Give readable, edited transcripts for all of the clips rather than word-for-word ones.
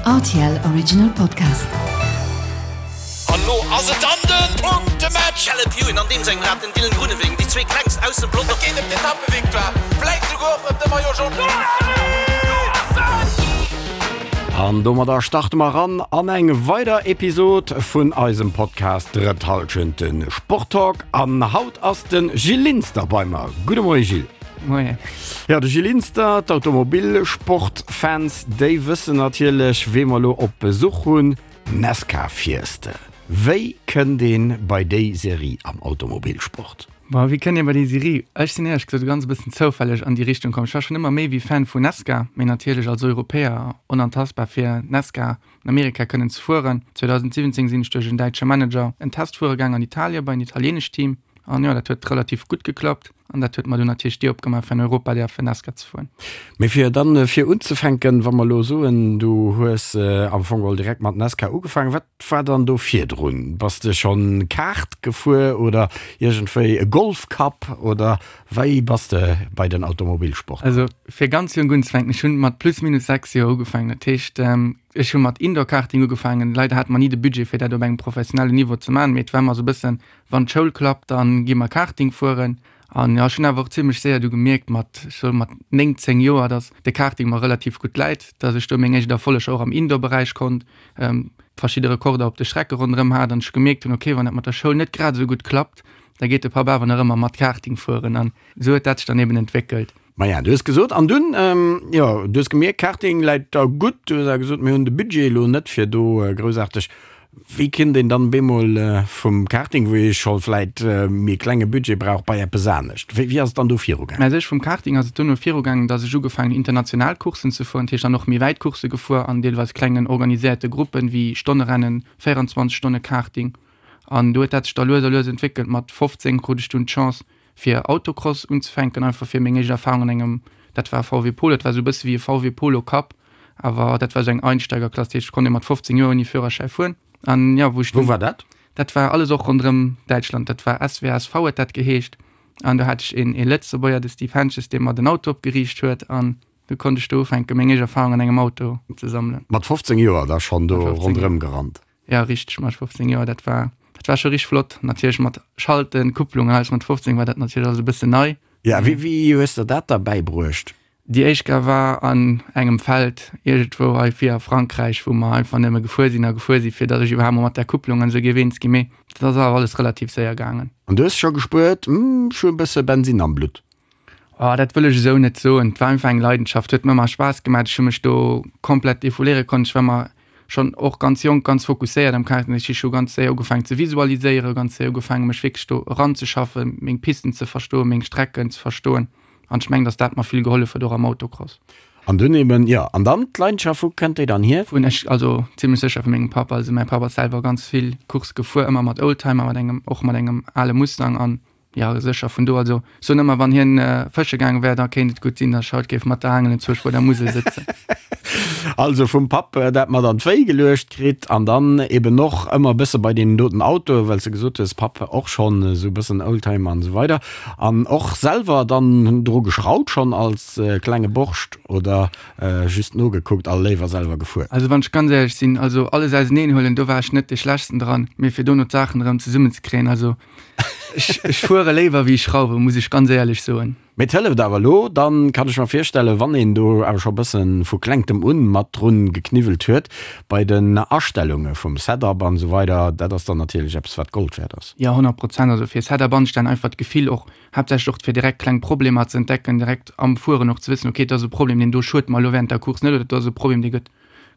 Rtl Original Podcast. An lo ass et dann den Punktematch! Caleb Ewan an deem sengem Rad den Dylan Groenewegen, déi zwee klengst aus dem Pelotong. Et geet ëm d'Etappevictoire, vläit souguer och ëm de Maillot Jaune. An domadder starte mer eran an eng weider Episod vun eisem Podcast Drëtt Hallschent, de Sporttalk. An haut ass de Gilles Linster bei mer. Gudde Moie Gilles. Moien. Jo, de Gilles Linster, d'Automobilsportfans, déi wëssen natierlech, wee mer elo op Besuch hunn. Nesca Fieste. Wéi kënnt een bei déi Serie am Automobilsport? Bon, wéi kënnt een bei déi Serie? Ech sinn éierlech gesot ganz e bëssen zoufälleg an déi Richtung komm. Ech war schonn ëmmer méi wéi Fan vu Nesca, mee natierlech als Europäer onantastbar fir Nesca an Amerika kënnen ze fueren. 2017 sinn ech duerch en däitsche Manager en Test fuere gaang an Italien bei en italienescht Team an jo, dat huet relativ gutt geklappt. An dat huet mer dunn natierlech d'Dier opgemaach fir an Europa däerfen Nascar ze fueren. Mee fir dann fir unzefänken, wa mer elo soen, du hues am Fong geholl direkt mat Nascar ugefaangen, wat war dann do virdrun? Bass de schonn Kart gefuer oder iergendwéi e Golf Cup oder wéi bass de bei den Automobilsport komm? Also fir ganz jonk unzefänken, ech hunn mat plus minus 6 Joer ugefaangen. Dat heescht ech hu mat Indoor Karting ugefaangen. Leider hate mer ni de Budget fir dat op engem professionellen Niveau ze maachen, mee et war ëmmer esou e bëssen Wann d'Schoul klappt, dann gi mer Karting fueren. An jo, ech hunn awer och zimlech séier du gemierkt, mat, ech soe mat 9, 10 Joer, dass de Karting mer relativ gutt läit, dass ech do meng éischt Erfolleger och am Indoor-Beräich konnt, verschidde Rekorder op de Strecke ronderëm hat an ech gemierkt hunn, okay, wann dat mat der Schoul net grad esou gutt klappt, da geet de Papp awer nach ëmmer mat Karting fueren. An esou huet dat sech dann eben entwéckelt. Maja, du hues gesot, an dunn, jo, du hues gemierkt, Karting läit der gutt. Du hues awer gesot, mir hunn de Budget elo net fir do groussaarteg. Wéi kënnt een dann bemol vum Karting, wou ee scho vläit méi klenge Budget brauch, bei eppes anescht? Wéi ass et dann do virugaangen? Mä sech vum Karting ass et duerno virugaangen, datt ech ugefaangen hunn international Courssen ze fueren, dat heescht dann och méi wäit Coursse gefuer an deelweis klengen organiséierte Gruppen, wéi Stonnerennen, 24 Stonne Karting. An do huet dat sech da lues a lues entwéckelt. Mat 15 krut ech dunn d'Chance, fir Autocross unzefänken, einfach fir meng éischt Erfahrung an engem, dat war VW Polo, dat war esou e bësse wéi e VW Polo Cup, awer dat war esou eng Einsteigerklass, dat heescht, et konnt ee mat 15 Joer ouni Führerschäi fueren. An jo, wou ech Wou war dat? Dat war alles och ronderëm Däitschland, dat war SWSV huet dat geheescht. An do hat ech een ee Lëtzebuerger, de Steve Hentges, dee mer den Auto opgeriicht huet an du konnt ech do ufänken, meng éischt Erfahrung an engem Auto ze sammelen. Mat 15 Joer da schonn do ronderëm gerannt? Ja richteg, mat 15 Joer, dat war dat war scho richteg flott. Natierlech mat Schalten, Kupplung an alles, mat 15 war dat natierlech alles e bëssen nei. Ja, wéi wéi hues der dat da bäibruecht? Déi éischt Kéier war an engem Feld iergendwou hei vir a Frankräich, wou mer einfach nëmme gefuer sinn a gefuer sinn, fir datt ech iwwerhaapt mol mat där Kupplung an esou géif eens ginn. Mee dat ass awer alles relativ séier gaangen. An du hues scho gespuert, Hm, ech hu e bësse Bensinn am Blutt? Oh, dat wëll ech esou net soen. Et war einfach eng Leidenschaft, huet mir ëmmer Spaass gemaach. Ech hu mech do komplett defouléiere konnt. Ech war ëmmer schonn och ganz jonk ganz fokusséiert am Karten. Ech hu scho ganz séier ugefaangen ze visualiséieren, ganz séier ugefaangen mech wierklech do eranzeschaffen, meng Pisten ze verstoen, meng Strecken ze verstoen. An ech mengen, datt dat mer vill gehollef huet, och am Autocross. An dunn eben, jo, an dann d'Leidenschaft, wou kënnt déi dann hier? Vun ech, also zimlech sécher vu mengem Papp. Also mäi Papp ass selwer ganz vill Course gefuer, ëmmer mat Oldtimer, mat engem, och mat engem ale Mustang an Jo, sécher, vun do. Also, ech soen ëmmer, wann hien fësche gaange wär, da kéint et gutt sinn, datt ech haut géif mat der Aangel enzwousch bei der Musel sëtzen. Also vum Papp dat mat an d'Wéi geluecht kritt an dann eben och ëmmer e bësse bei deenen doten Autoen, well s de gesot hues, Papp och schonn esou e bëssen Oldtimer an esou weider an och selwer dann dru geschrauwt schonn als klenge Borscht oder just nogekuckt a léiwer selwer gefuer? Also wann ech ganz éierlech sinn, also alles auseneen huelen, do war ech net dee Schlechtsten dran, mee fir dono d'Saachen erëm zesummenzekréien, also Ech fuere léiwer wéi ech schrauwen, muss ech ganz éierlech soen. Mee et hëlleft awer elo, dann kann ech mer virstellen, wann een do awer scho bëssen vu klengtem un mat drun gekniwwelt huet, bei den Astellunge vum Setup an esou weider, dat ass dann natierlech eppes wat Gold wäert ass. Jo, 100 Prozent. Also fir Setup anstellen, einfach d'Gefill och, haaptsächlech och fir direkt kleng Problemer ze entdecken, direkt am Fueren och ze wëssen, okay, do ass e Problem, deen do schuet mer elo während der Course net oder do ass e Problem, dee gëtt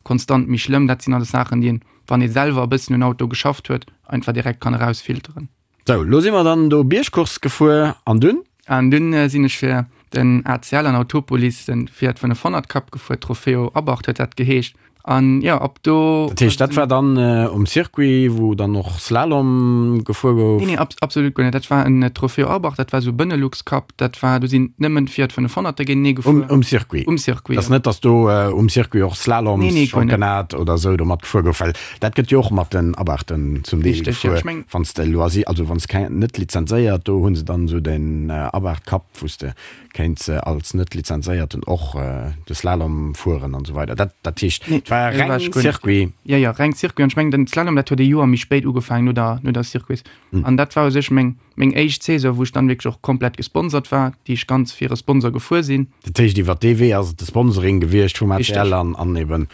konstant méi schlëmm. Dat sinn alles Saachen, déi een wann ee selwer e bëssen un Auto geschafft huet, einfach direkt kann erausfilteren. Sou, lo si mer dann do Biergcourse gefuer an dunn? An dunn sinn ech fir den ACL an Autopolis den Fiat 500 Cup gefuer, Trofeo Abarth huet dat geheescht. An jo, ab do. Dat heescht, dat war dann um Circuit, wou dann och Slalom gefuer gouf? Nee, nee, absolut guer net. Dat war en Trofeo Abarth, dat war esou Benelux Cup, dat war, do sinn nëmmen Fiat 500er géintenee gefuer. Um Circuit? Um Circuit, jo. Dass net, dass do um Circuit och Slaloms-Championnat oder esou do matgefuer gouf, well dat gëtt jo och mat den Abarthen zum Deel gefuer, wann s de Loisir, also wann s keng, net lizenzéiert, do hu se dann esou den Abarth Cup, wou s de kéints als net lizenzéierten och de Slalom fueren an esou weider. Dat, dat heescht, et war. war reng Circuit. Jo, jo, reng Circuit. An ech mengen, den Slalom, dat huet e Joer méi spéit ugefaangen, no der, no der Circuits. An dat war u sech meng, meng éischt Saison, wou ech dann wierklech och komplett gesponsert war, déi ech ganz fir e Sponsor gefuer sinn. Dat heescht, iwwer dee Wee ass et de Sponsoring gewiescht vum ACL an, an eben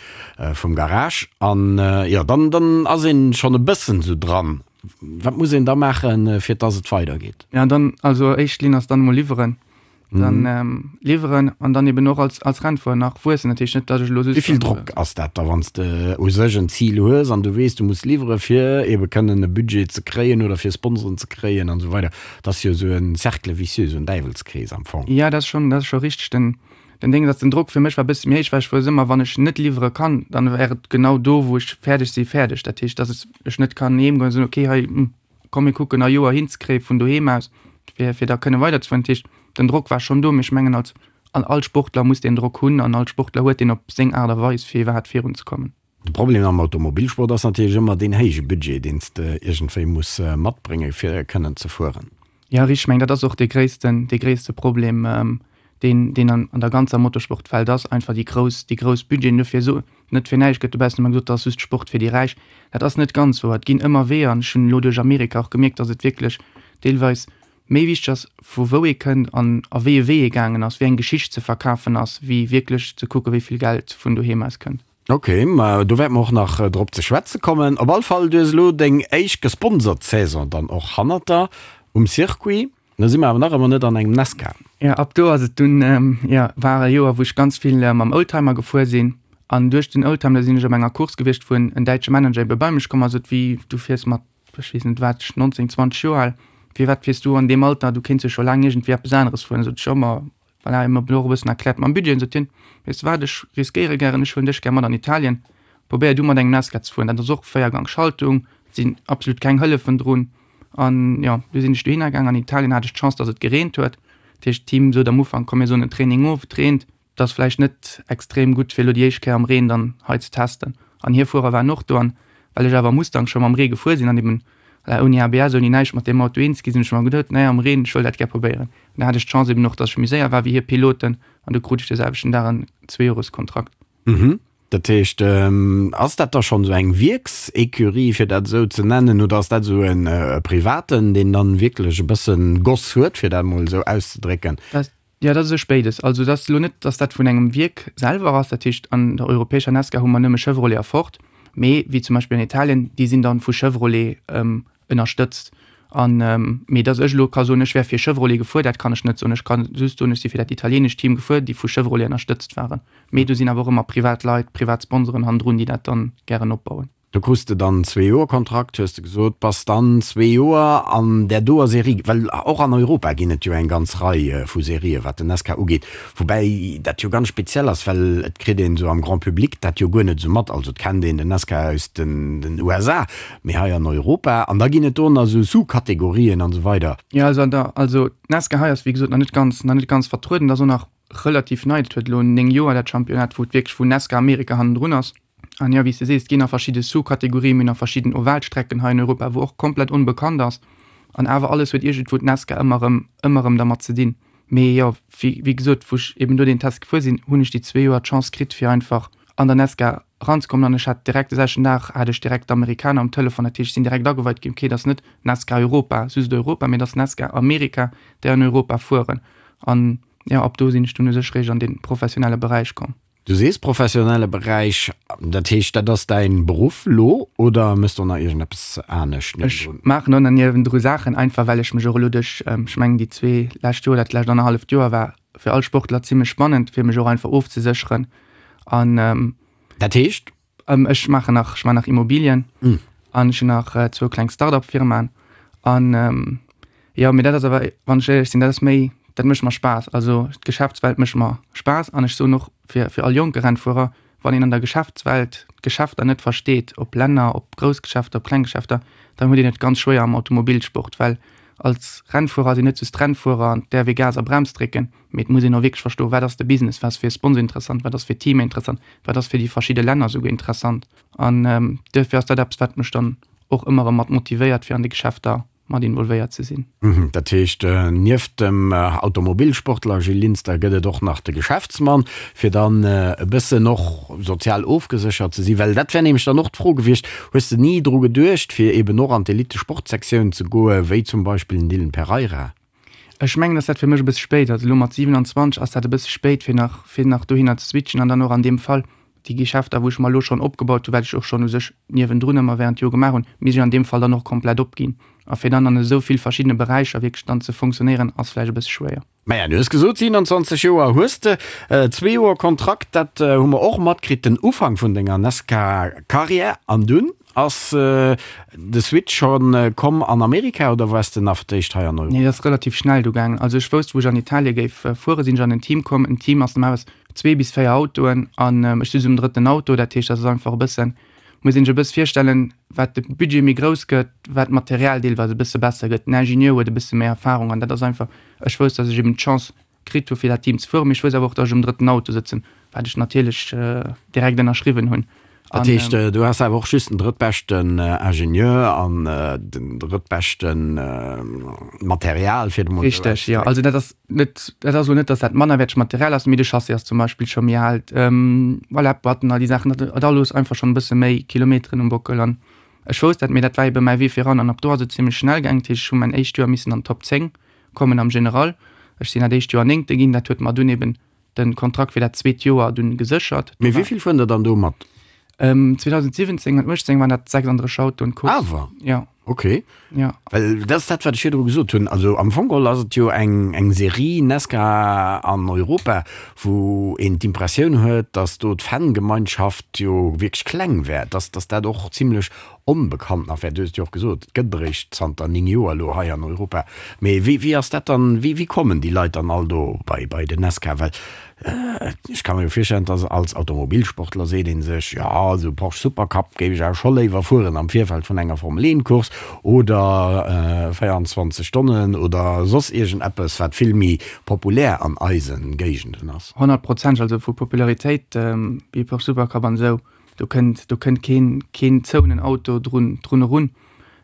vum Garage. An jo, dann, dann ass een schonn e bëssen esou dran. Wat muss een da maachen, fir dass et weidergeet? Ja, dann, also éischt Linn ass dann emol liwweren. Dann liwweren an dann eben och als, als Rennfuerer nach wuessen. Dat heescht net, dass ech elo just. Wéi vill Drock ass dat da, wann s de u sech en Zil hues an du weess, du muss liwwere fir ebe kënnen e Budget ze kréien oder fir Sponsoren ze kréien an esou weider? Dat ass jo esou e Cercle vicieux, esou en Däiwelskrees am Fong. Ja, dat ass schonn, dat ass scho richteg. Den, den Ding ass, den Drock fir mech war e bësse méi héich, well ech wousst ëmmer, wann ech net liwwere kann, dann wär et genau do, wou ech fäerdeg si fäerdeg. Dat heescht, dass ech net kann heem goen a soen, okay, hei, komm mir kucken a Joer hinzekréie vun doheem aus, fir fir da kënne weiderzefueren. Dat heescht, den Drock war schonn do, mee ech mengen als an all Sportler muss deen Drock hunn an all Sportler huet deen op seng Aart a Weis fir iwwerhaapt virunzekommen. De Problem am Automobilsport ass natierlech ëmmer deen héije Budget, deen s de iergendwéi muss matbrénge fir kënnen ze fueren. Jo, richteg. Ech mengen dat ass och dee gréissten, dee gréisste Problem, deen, deen an, an der ganzer Motorsportwelt ass, einfach déi grouss, déi grouss Budgeten. Dofir so, net fir näischt gëtt dobaussen ëmmer gesot, dat ass just Sport fir déi Räich. Dat ass net ganz wouer. Et ginn ëmmer Weeër an ech hunn elo duerch Amerika och gemierkt, datt et wierklech deelweis méi wichteg ass, vu wou ee kënnt an a wéi e Wee ee gaangen ass, wéi eng Geschicht ze verkafen ass, wéi wierklech ze kucken, wéi vill Geld vun doheem aus kënnt. Ok, ma do wäerte mer och nach drop ze schwätze kommen. Op all Fall, du hues elo deng éischt gesponsert Saison dann och hannert der um Circuit. Da si mer awer nach ëmmer net an engem Nascar. Jo, ab do ass et dunn, jo, war e Joer, wou ech ganz vill mam Oldtimer gefuer sinn. An duerch den Oldtimer sinn ech op enger Course gewiescht, wou en däitsche Manager ebe bei mech komm ass, sot, Wéi, du fiers mat, ech weess net wat, 19, 20 Joer al, firwat fiers du an deem Alter, du kéints jo scho laang iergendwéi eppes aneres fueren. Sot ech, jo, ma Voilà, hien huet mer och e bëssen erkläert mam Budget. Sot hien, Weess de wat, ech riskéiere gären, ech huelen dech gär mat an Italien, probéier du mat engem Nascar ze fueren. Dat ass och Véiergang-Schaltung, et sinn absolut keng Hëllefen drun. An jo, du sinn ech dohinner gaang. An Italien hat ech d'Chance, datt et gereent huet. Dat heescht, d'Team sot am Ufank, komm mir soen den Training of, et reent, et ass vläicht net extrem gutt, fir elo déi éischt Kéier am Reen dann hei ze testen. An hir Fuerer waren och do. An well ech awer Mustang scho mam Ree gefuer sinn an eben voilà, ouni ABS, ouni näischt mat deem Auto eens gi sinn, ech mer geduet, naja, am Reen, ech wëll dat gär probéieren. An da hat ech d'Chance eben och, dass ech méi séier war wéi hir Piloten an du krut ech de selwechten Dag en Zweejoreskontrakt. Mhm. Dat heescht, ass dat da schonn esou eng Wierks-Ecurie, fir dat esou ze nennen, oder ass dat esou e privaten, deen dann wierklech e bëssen Goss huet, fir dat emol esou auszedrécken? Dat, jo, dat ass e Spéides. Also et ass elo net, dass dat vun engem Wierk selwer ass. Dat heescht, an der europäescher Nascar hu mer nëmme Chevrolet a Ford, mee wéi zum Beispill an Italien, déi sinn dann vu Chevrolet ënnerstëtzt. An, mee dass ech elo ka soen, ech wär fir Chevrolet gefuer, dat kann ech net soen. Ech ka just soen, ech si fir dat italienescht Team gefuer, déi vu Chevrolet ënnerstëtzt waren. Mee do sinn awer och ëmmer privat Leit, privat Sponsoren hannendrun, déi dat dann gären opbauen. Do krus de dann Zweejoerkontrakt, hues de gesot, bass dann zwee Joer an där doer Serie, well och an Europa ginn et jo eng ganz Rei vu Serien, wat den NASCAR ugeet. Woubäi dat jo ganz speziell ass, well et kritt een esou am Grand Public dat jo guer net esou mat. Also et kennt een den NASCAR aus den USA, mee hei an Europa, an da ginn et do nach esou Sous-Kategorien an esou weider. Jo, also an der, also d'NASCAR hei ass wéi gesot nach net ganz, nach net ganz vertrueden. Dat ass och nach relativ nei, dat huet elo 9 Joer dat Championnat, wou et wierklech, wou NASCAR Amerika hannendrun ass. An jo, wéi s de sees, et ginn nach verschidde Sous-Kategorien, mir hunn nach verschidden Ovalstrecken hei in Europa, wou och komplett onbekannt ass. An awer alles huet iergendwou d'NASCAR ëmmer erëm, ëmmer erëm dermat ze dinn. Mee jo, wéi, wéi gesot, wou ech eben do deen Test gefuer sinn, hunn ech déi zwee Joer d'Chance kritt, fir einfach an der NASCAR eranzekommen. An ech hat direkt de selwechten Dag hat ech direkt d'Amerikaner um Telefon, dat heescht, ech sinn direkt ageweit ginn, okay, dat ass net NASCAR Europa, just Europa, mee dat ass NASCAR Amerika, déi an Europa fueren. An jo, ab do sinn ech dunn u sech réischt an dee professionelle Beräich komm. Du sees professionelle Beräich, dat heescht dat ass däin Beruff lo oder mëss do nach iergendeppes anescht Ech niewendrun? maachen och nach niewendru Saachen, einfach well ech mech och elo duerch, ech mengen déi zwee lescht Joer, dat lescht annerhalleft Joer war fir all Sportler zimmlech spannend, fir mech och einfach ofzesécheren an. Dat heescht? Ech maachen nach, ech maachen nach Immobilien an ech hunn nach zwou kleng Start-up-Firmaen an jo, mee dat ass awer, wann ech éierlech sinn, dat ass méi, dat mécht mer Spaass. Also d'Geschäftswelt mécht mer Spaass an ech soen och fir fir all jonke Rennfuerer, wann een an der Geschäftswelt d'Geschäfter net versteet, ob Länner, ob grouss Geschäfter, ob kleng Geschäfter, dann huet een et ganz schwéier am Automobilsport, well als Rennfuerer sinn net just d'Rennfuerer an d'äerf ee Gas a Brems drécken. Mee et muss een och wierklech verstoen, wat ass de Business, wat ass fir e Sponsor interessant, wat ass fir Teamer interessant, wat ass fir déi verschidde Länner esouguer interessant. An duerfir ass dat eppes, wat mech dann och ëmmer erëm mat motivéiert, fir an de Geschäfter. mat involvéiert ze sinn. Dat heescht, nieft dem Automobilsportler Gilles Linster gëtt et och nach de Geschäftsmann, fir dann e bëssen och sozial ofgeséchert ze sinn? Well dat wär nämlech dann och d'Fro gewiescht, Hues de ni dru geduecht, fir eben och an d'Elite-Sportsektioun ze goen, wéi zum Beispill den Dylan Pereira? Ech mengen, dass dat fir mech e bësse spéit ass. Elo mat 27 ass dat e bësse spéit, fir nach, fir nach dohinner ze switchen an dann och an deem Fall déi Geschäfter, wou ech mer elo schonn opgebaut hunn, wat ech och schonn u sech niewendrun ëmmer während Jore gemaach hunn, misst ech an deem Fall dann och komplett opginn. A fir dann an esou vill verschiddene Beräicher wierklech dann ze fonctionnéieren, ass vläicht e bësse schwéier. Maja, du hues gesot, 27 Joer hues de, zwee Joer Kontrakt, dat hu mer och matkritt, den Ufank vun denger Nascar-Karriär. An dunn ass de Switch scho komm an Amerika oder waars de nach fir d'éischt hei an Europa? Nee, dat ass relativ schnell du gaangen. Also ech wousst, wou ech an Italie géif fueren, sinn ech an en Team komm. En Team ass normalerweis zwee bis véier Autoen an ech sinn um drëtten Auto. Dat heescht, dat ass einfach e bëssen, muss een sech e bësse virstellen, wat de Budget méi grouss gëtt, wat d'Material deelweis e bësse besser gëtt. Den Ingenieur huet e bësse méi Erfahrung an dat ass einfach, ech wousst, datt ech eben d'Chance kritt hu fir dat Team ze fueren, mee ech wousst awer och, datt ech um drëtten Auto sëtzen, wat ech natierlech direkt ënnerschriwwen hunn. Dat heescht, du has awer och just den drëttbeschten Ingenieur an den drëttbeschten Material, fir et emol esou auszedrécken. Richteg, jo. Also dat ass net, dat ass elo net, datt dat mannerwäertegt Material ass, mee de Chassis ass zum Beispill scho méi al. Voilà, d'Boîten, all déi Saachen, dat huet alles einfach schonn e bësse méi Kilometeren um Bockel. An ech wousst dat, mee dat war ebe mäi Wee viran. An ab do ass et zimmlech schnell gaangen. Dat heescht, ech hu mäin éischt Joer missen an d'Top 10 kommen am General. Ech sinn dat éischt Joer Néngte ginn. Dat huet mer dunn eben den Kontrakt fir dat zweet Joer dunn geséchert. Mee wéi vill fueren der dann do mat? 2017 an 18 waren dat 36 Autoen d'Course. Awer? Ja. Ok. Ja. Well dat ass dat, wat ech virdru gesot hunn. Also am Fong geholl ass et jo eng, eng Serie Nascar an Europa, wou een d'Impressioun huet, datt do d'Fangemeinschaft jo wierklech kleng wär, datt, datt dat och zimlech onbekannt nach wär. Du hues et jo och gesot, et gëtt eréischt zanter 9 Joer elo hei an Europa. Mee wéi, wéi ass dat dann, wéi, wéi kommen déi Leit dann all do bei, bei den Nascar? Well ech ka mer jo virstellen, dass als Automobilsportler seet ee sech, jo, esou Porsche Supercup géif ech awer scho léiwer fueren am Virfeld vun enger Formel 1 Course oder 24 Stonnen oder soss iergendeppes, wat vill méi populär an eise Géigenden ass. Honnertprozenteg, also vu Popularitéit wéi Porsche Supercup an esou. Do kënnt, do kënnt keen, keen zouenen Auto drun, drun erun.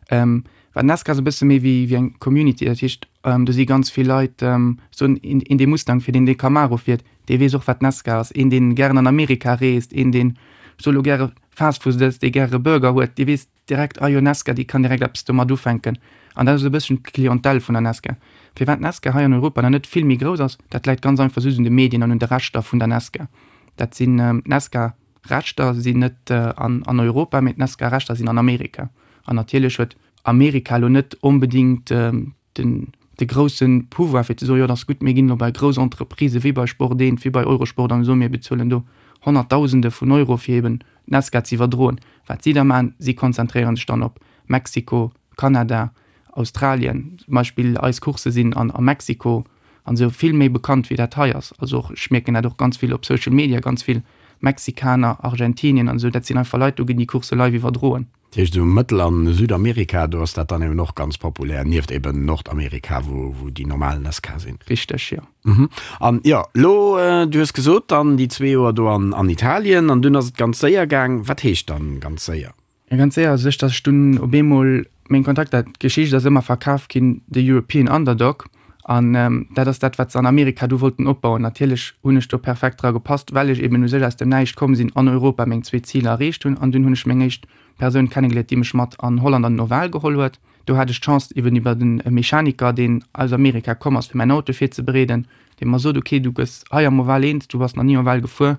Ähm, well Nascar ass e bësse méi wéi, wéi eng Community. Dat heescht, do si ganz vill Leit, soen, een, een dee Mustang fiert, een dee Camaro fiert, dee weess och wat Nascar ass. Een deen gären an Amerika reest, een deen, ech soe lo gäre Fastfood ësst, dee gäre Burger huet, dee weess direkt, ah jo Nascar, déi kann direkt eppes domat ufänken. An dat ass e bësschen d'Clientèle vun der Nascar. Firwat d'Nascar hei an Europa nach net vill méi grouss ass, dat läit ganz einfach just un de Medien an un de Rechter vun der Nascar. Dat sinn, d'Nascar Rechter sinn net an Europa, mee d'Nascar Rechter sinn an Amerika. An natierlech huet Amerika elo net onbedéngt den de grousse Pouvoir fir ze soen, jo et ass gutt, mir ginn elo bei grouss Entreprisë wéi bei Sport 1, wéi bei Eurosport an soen, mir bezuelen do Honnertdausende vun Euro fir eben d'Nascar ze iwwerdroen. Wat si da maachen, si konzentréiere sech dann op Mexiko, Kanada, Australien. Zum Beispill eis Coursse sinn an a Mexiko an esou vill méi bekannt wéi dat hei ass. Also och, ech mierken dat och ganz vill op Social Media, ganz vill Mexikaner, Argentinien an esou, dat sinn einfach Leit, do ginn déi Coursse live iwwerdroen. Dat heescht esou Mëttel an Südamerika, do ass dat dann eben och ganz populär, nieft eben Nordamerika, wou wou déi normal NASCAR sinn. Richteg, jo. Mhm. An jo, elo, du hues gesot dann déi zwee Joer do an an Italien an dunn ass et ganz séier gaang. Wat heescht dann ganz séier? Ja, ganz séier, also sech, dass ech dunn op eemol meng Kontakter, d'Geschicht ass ëmmer verkaf ginn, de European Underdog, an dat ass dat, wat se an Amerika du wollten opbauen. Natierlech hunn ech do perfekt dra gepasst, well ech eben u sech aus dem Näischt komm sinn, an Europa meng zwee Ziler erreecht hunn, an dunn hunn ech meng éischt Persoun kennegeléiert, déi mech mat an Holland an den Oval geholl huet. Do hat ech d'Chance eben iwwer en Mechaniker, deen aus Amerika komm ass, fir mäin Auto virzebereeden, dee mer sot, ok, du gëss hei am Oval eens, du bass nach ni Oval gefuer,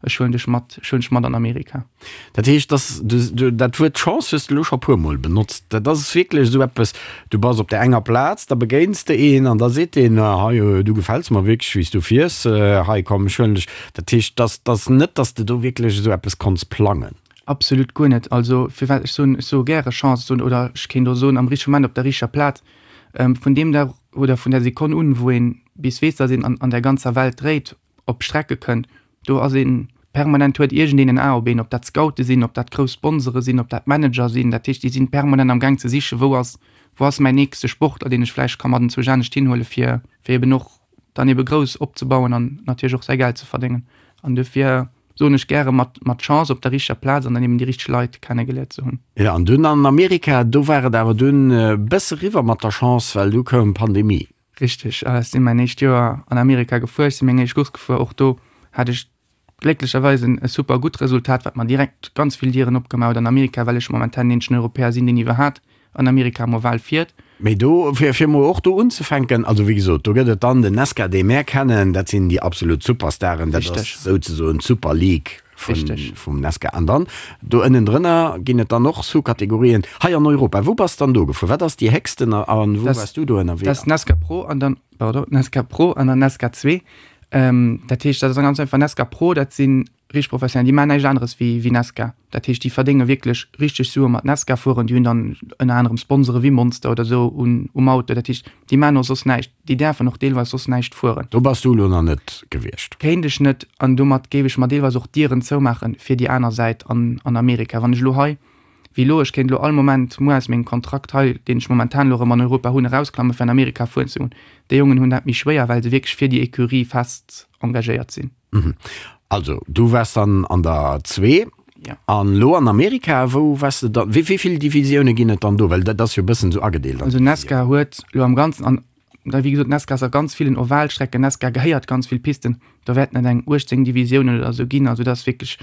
Ech huelen dech mat, ech huelen dech mat an Amerika. Dat heescht, dass du, dat Wuert Chance hues de elo scho puer Mol benotzt. Dat ass wierklech esou eppes, du bass op där enger Plaz, da begéins de een an da seet deen, hei, du gefäls mer wierklech, wéi s du fiers, hei komm, ech huelen dech. Dat heescht, dass dass net, dass de do wierklech esou eppes konnts plangen. Absolut guer net. Also firwat, ech soen, ech soe gäre Chance, soen, oder ech kéint och soen, am richtege Moment op der richteger Plaz. Vun deem Dag oder vun där Sekonn un, wou een bis weess, dass een an an der ganzer Welt dréit, op Strecke kënnt, do ass een permanent, huet iergendeen en A op een, ob dat Scoute sinn, ob dat grouss Sponsore sinn, ob dat Manager sinn, dat heescht, déi sinn permanent am Gaang ze sichen, wou ass, wou ass mäin nächste Sportler, deen ech vläicht ka mat enzwousch anescht hinhuele fir, fir eben och dann ebe grouss opzebauen an natierlech och säi Geld ze verdéngen. An dofir. Soen ech gäre, mat mat Chance op der richteger Plaz an dann eben déi richteg Leit kennegeléiert ze hunn. Jo, an dunn an Amerika, do war et awer dunn e bësse riwwer mat der Chance, well du koum d'Pandemie. Richteg, ech sinn mäin éischt Joer an Amerika gefuer, ech sinn meng éischt Course gefuer. Och do hat ech glécklecherweis en e super gutt Resultat, wat mer direkt ganz vill Dieren opgemaach huet an Amerika, well ech momentan den eenzegen Europäer sinn, deen iwwerhat an Amerika am Oval fiert. Mee do, fir fir mol och do unzefänken, also wéi gesot, do gëtt et dann den Nesca, dee mär kennen, dat sinn déi absolut Superstaren, dat ass souzesoen d'Super League vun, vum Nesca. An dann do ënnendrënner ginn et dann och Sous-Kategorien. Hei an Europa, wou bass dann do gefuer? Wat ass déi héchsten a wou waars du do ënnerwee? Dat ass Nesca Pro an dann, pardon, Nesca Pro an dann Nesca 2. Dat heescht, dat ass ganz einfach, Nesca Pro, dat sinn Richteg professionell, déi maachen näischt aneres wéi wéi Nesca. Dat heescht, déi verdénge wierklech richteg Sue mat Nesca fueren. Déi hunn dann ënner anerem Sponsore wéi Monster oder esou un um Auto. Dat heescht, déi maachen och soss näischt. Déi däerfen och deelweis soss näischt fueren. Do bass du elo nach net gewiescht. Kéint ech net. An domat géif ech mer deelweis och d'Dieren zoumaache fir déi aner Säit an an Amerika. Wann ech elo hei, wéi elo, ech kéint elo all Moment muer aus mengem Kontrakt hei, deen ech momentan elo erëm an Europa hunn, erausklamme fir an Amerika fueren ze goen. Déi Jongen hunn dat méi schwéier, well se wierklech fir déi Ecurie fest engagéiert sinn. Also du waars dann an der zwee. Ja. An lo an Amerika, wou waars de dann? Wéi vill Divisioune ginn et dann do? Well dat ass jo e bëssen esou agedeelt an Also Nesca huet lo am Ganzen, an da wéi gesot, Nesca ass a ganz villen Ovalstrecken, Nesca gehéiert ganz vill Pisten, do wäerten et eng 18 Divisiounen oder esou ginn. Also dat ass wierklech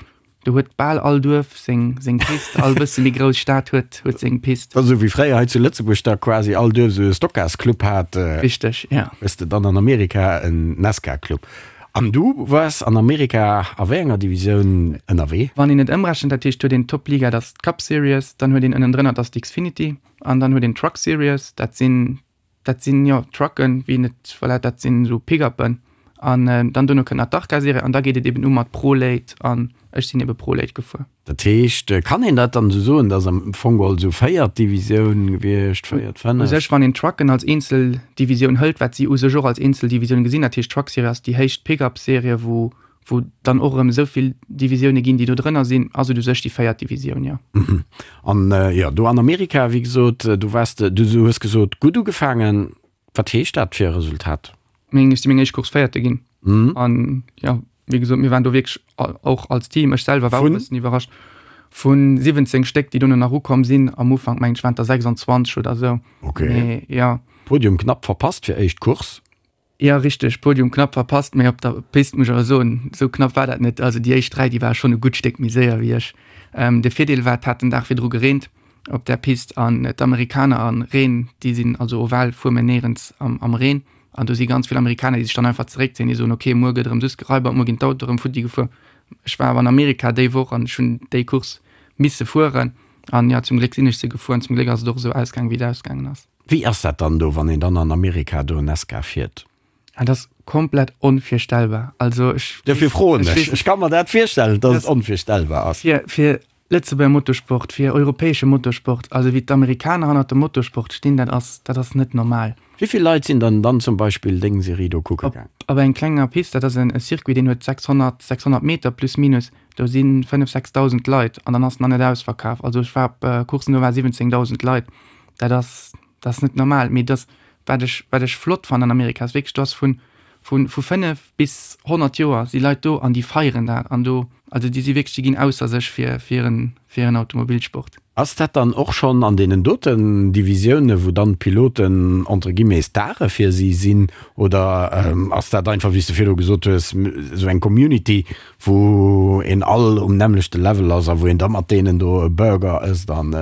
Do huet bal all Duerf seng seng Pist, all bësse méi grouss Stad huet huet seng Pist. Dat ass esou wéi fréier hei zu Lëtzebuerg da quasi all Duerf esou e Stockcars-Club hat. Richteg, ja. Hues de dann an Amerika en NASCAR-Club. An du waars an Amerika a wéi enger Divisioun ënnerwee? Wann een et ëmrechent, dat heescht, huet een d'Top-Liga, dat ass d'Cup Series, dann huet een ënnendrënner, dat ass d'Xfinity, an dann huet een d'Truck Series, dat sinn Dat sinn, jo, Trucken, wéi een et, voilà, dat sinn esou Pickuppen. An dann dono kënnt nach d'Arca-Serie an da geet et eben u mat Pro-Late an ech sinn ebe Pro-Late gefuer. Dat heescht, kann een dat dann esou soen, dass am Fong geholl esou véiert Divisioun gewiescht, véiert, U fënneft? sech, wann een d'Trucken als eenzel Divisioun hëlt, wat si u sech och als eenzel Divisioun gesinn, dat heescht d'Truck-Serie ass déi héicht Pickup-Serie, wou wou dann och erëm esou vill Divisioune ginn, déi do drënner sinn, ass et u sech déi véiert Divisioun, jo. An jo, do an Amerika, wéi gesot, do waars de, du hues gesot, gutt ugefaangen. Wat heescht dat fir e Resultat? Meng, ech si meng éischt Course Véierte ginn. An jo, wéi gesot, mir waren do wierklech och als Team, ech selwer war och e bëssen iwwerrascht, vu 17 Stéck, déi dono nach ukomm sinn, am Ufank meng ech waren et der 26 oder esou. Okay. Mee jo. Podium knapp verpasst fir éischt Course. Jo richteg, Podium knapp verpasst, mee op der Pist muss ech awer soen, esou knapp war dat net. Also déi éischt 3, déi ware schonn e gutt Stéck méi séier wéi ech. De Virdeel war, et hat den Dag virdru gereent op där Pist an d'Amerikaner an Reen, déi sinn, also oval fuer mir néierens am Reen an do si ganz vill Amerikaner, déi sech dann einfach zeréckzéien, déi soen, ok muer gëtt erëm soss geraibert, muer ginn d'Autoe erëm futti gefuer. Ech war awer an Amerika déi Woch an ech hunn déi Course misse fueren an jo, zum Gléck sinn ech se gefuer an zum Gléck ass et och esou ausgaangen, wéi et ausgaangen ass. Wéi ass dat dann do, wann een dann an Amerika do Nesca fiert? Dat ass komplett onvirstellbar. Also ech. Dofir froen ech. Ech ka mer dat virstellen, datt et onvirstellbar ass. Fir, fir Lëtzebuerger Motorsport, fir europäesche Motorsport, also wéi d'Amerikaner hannert dem Motorsport stinn, dat ass, dat ass net normal. Wéi vill Leit sinn dann dann zum Beispill deng Serie do kucke gaang? Op eng klenger Pist, dat ass en Circuit, deen huet 600, 600 Meter plus minus, do si 5, 6.000 Leit an dann ass nach net ausverkaf. Also ech war op Courssen, do ware 17.000 Leit. Dat ass, dat ass net normal. Mee dass, wat ech, wat ech flott fannen an Amerika, ass wierklech, do ass vun, vun, vu 5 bis 100 Joer si Leit do an déi feieren dat an do, also déi si wierklech, déi ginn ausser sech fir, fir hiren, fir hiren Automobilsport. Ass dat dann och schonn an deenen doten Divisioune wou dann d'Piloten entre guillemets Stare fir si sinn oder ass dat einfach, wéi s de virdru gesot hues, esou eng Community, wou een all um nämmlechte Level ass a wou een da mat deenen do e Burger ësst an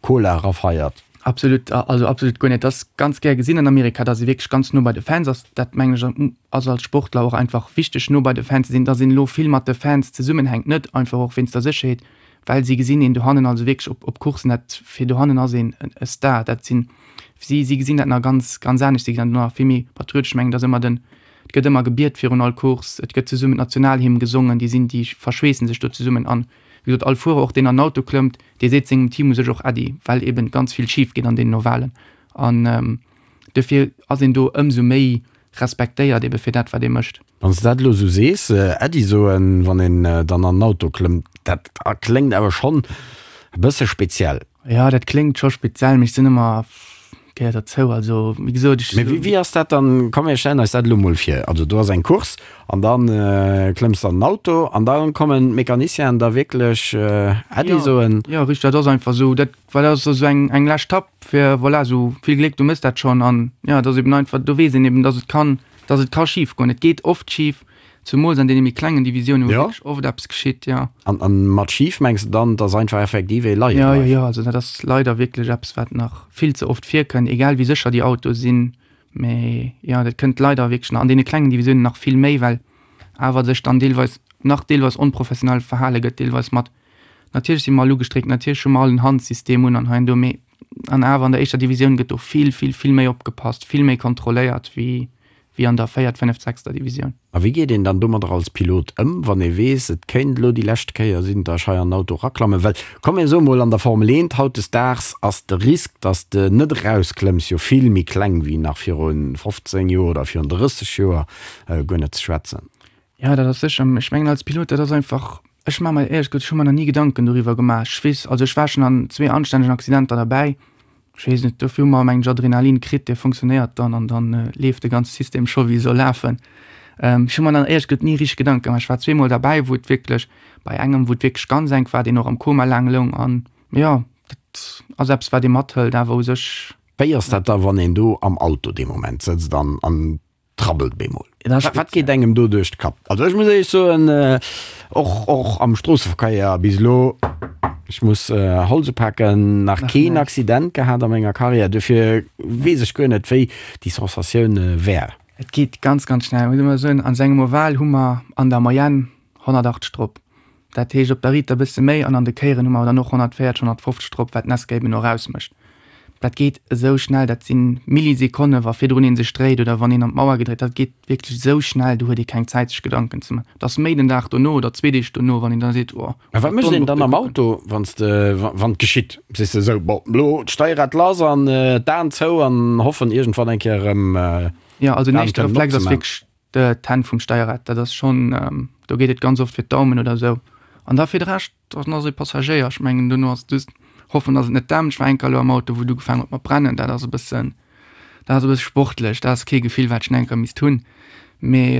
Cola erafeiert? Absolut, also absolut guer net. Dat ass ganz gär gesinn an Amerika, datt ee wierklech ganz no bei de Fans ass. Dat mengen ech ass als Sportler och einfach wichteg, no bei de Fans ze sinn. Datt een elo vill mat de Fans zesummenhänkt, net einfach och wéinst der Sécherheet, well si gesinn een dohannen, also wierklech op op Courssen, dat fir dohannen ass een e Star. Dat sinn si, si gesinn dat nach ganz ganz anescht, si gesinn dat nach vill méi patriotesch. Ech mengen, et ass ëmmer den, et gëtt ëmmer gebiet virun all Course, et gëtt zesummen d'Nationalhymn gesongen, déi sinn, déi verschweessen sech do zesummen an Wéi gesot, all Fuerer, och deen an den Auto klëmmt, dee seet sengem Team u sech och Äddi, well eben ganz vill schif geet an deenen Ovalen. An dofir ass een do ëmsou méi respektéiert ebe fir dat, wat ee mécht. Wann s de dat elo esou sees, Äddi soen, wann een dann an den Auto klëmmt, dat kléngt awer schonn e bësse speziell. Jo, dat kléngt scho speziell, mee ech sinn ëmmer. Gehéiert derzou. Also, wéi gesot, ech. Mee wéi, wéi ass dat dann? Komm mir stellen eis dat elo mol vir. Also do ass eng Course an da klëmms de an den Auto an da kommen d'Mecanicienen da wierklech Äddi soen. Jo, richteg, dat ass einfach esou. Dat, well dat ass esou eng, eng lescht Tapp fir, voilà, esou vill Gléck, du méchs dat schonn. An jo, et ass eben einfach, do weess een eben, dass et kann, dass et ka schif goen. Et geet oft schif. Zumools an deene méi klengen Divisiounen, wou wierklech oft eppes geschitt, jo. An, an mat schif mengs de dann, dass einfach effektiv ee leie bleift? Jo, jo, jo, also dat ass leider wierklech eppes, wat nach vill ze oft virkënnt, egal wéi sécher déi Autoe sinn. Mee jo, dat kënnt leider wierklech nach an deene klengen Divisiounen nach vill méi, well awer sech dann deelweis nach deelweis onprofessionell verhale gëtt, deelweis mat, natierlech si mer all ugestréckt, natierlech hu mer all en Handsystem un an hei an do, mee an awer an der éischter Divisioun gëtt do vill, vill, vill méi opgepasst, vill méi kontrolléiert wéi wéi an der véiert, fënneft, sechster Divisioun. A wéi geet een dann domadder als Pilot ëm, wann ee weess, et kéint elo déi lescht Kéier sinn, datt ech hei an den Auto eraklammen? Well, komm mir soe mol, an der Formel 1 hautdesdaags ass de Risk, datt s de net erausklëmms, jo vill méi kleng wéi nach viru 15 Joer oder virun 30 Joer, guer net ze schwätzen. Jo, dat ass sécher. Ech mengen als Pilot, dat ass einfach, ech maache mer éierlech gesot, ech hu mer nach ni Gedanken doriwwer gemaach. Ech weess, also ech war schonn an zwee anstännegen Accidenter derbäi, Ech weess net, dofir hu mer mengen ech Adrenalin kritt, dee funktionéiert dann an dann leeft de ganze System scho wéi e soll lafen. Ech hu mer dann éierlech gesot ni richteg Gedanke gemaach. Ech war zweemol derbäi, wou et wierklech, bei engem wou et wierklech ganz enk war, deen och am Koma laang loung an jo, dat ass eppes wat ee mathëlt awer u sech. Wéi ass dat da wann een do am Auto dee Moment sëtzt an an Trabbelt bemol. Wat geet engem do duerch de Kapp? Also ech muss éierlech soen, och och am Stroosseverkéier bis elo, ech muss Holz upaken, nach keen Accident gehat a menger Karriär, duerfir weess ech guer net wéi déi Sensatioun wär. Et geet ganz ganz schnell, muss ech mol soen. An sengem Oval hu mer an der Moyenne 180 drop. Dat heescht op der Riit e bësse méi an an de Kéieren hu mer dann och 140, 150 drop, wat d'Nesca eben och ausmécht. Dat geet esou schnell, dat si Millisekonne wa virdrun ee sech dréit oder wann een an d'Mauer gedréit, dat geet wierklech esou schnell, do huet ee keng Zäit sech Gedanken ze man. Et ass méi den Dag dono oder zwee Deeg dono, wann een da seet, oh, Mä wat mécht een dann am Auto, wann s de, wann et geschitt? Sees de esou, bon, elo d'Steierrad lass an d'Aen zou an hoffen iergendwann eng Kéier erëm Jo, also den éischte Reflex ass wierklech D'Hänn vum Steierrad, dat ass schonn, do geet et ganz oft fir d'Daumen oder esou. An da fir de Rescht, dann ass ee Passagéier. Ech mengen, dono ass et just hoffen, datt et net dämpt. Ech war eng Kéier elo am Auto, wou et ugefaangen huet mat brennen. Dat ass e bëssen, dat ass e bësse sportlech. Dat ass kee Gefill, wat ech nach eng Kéier misst hunn. Mee.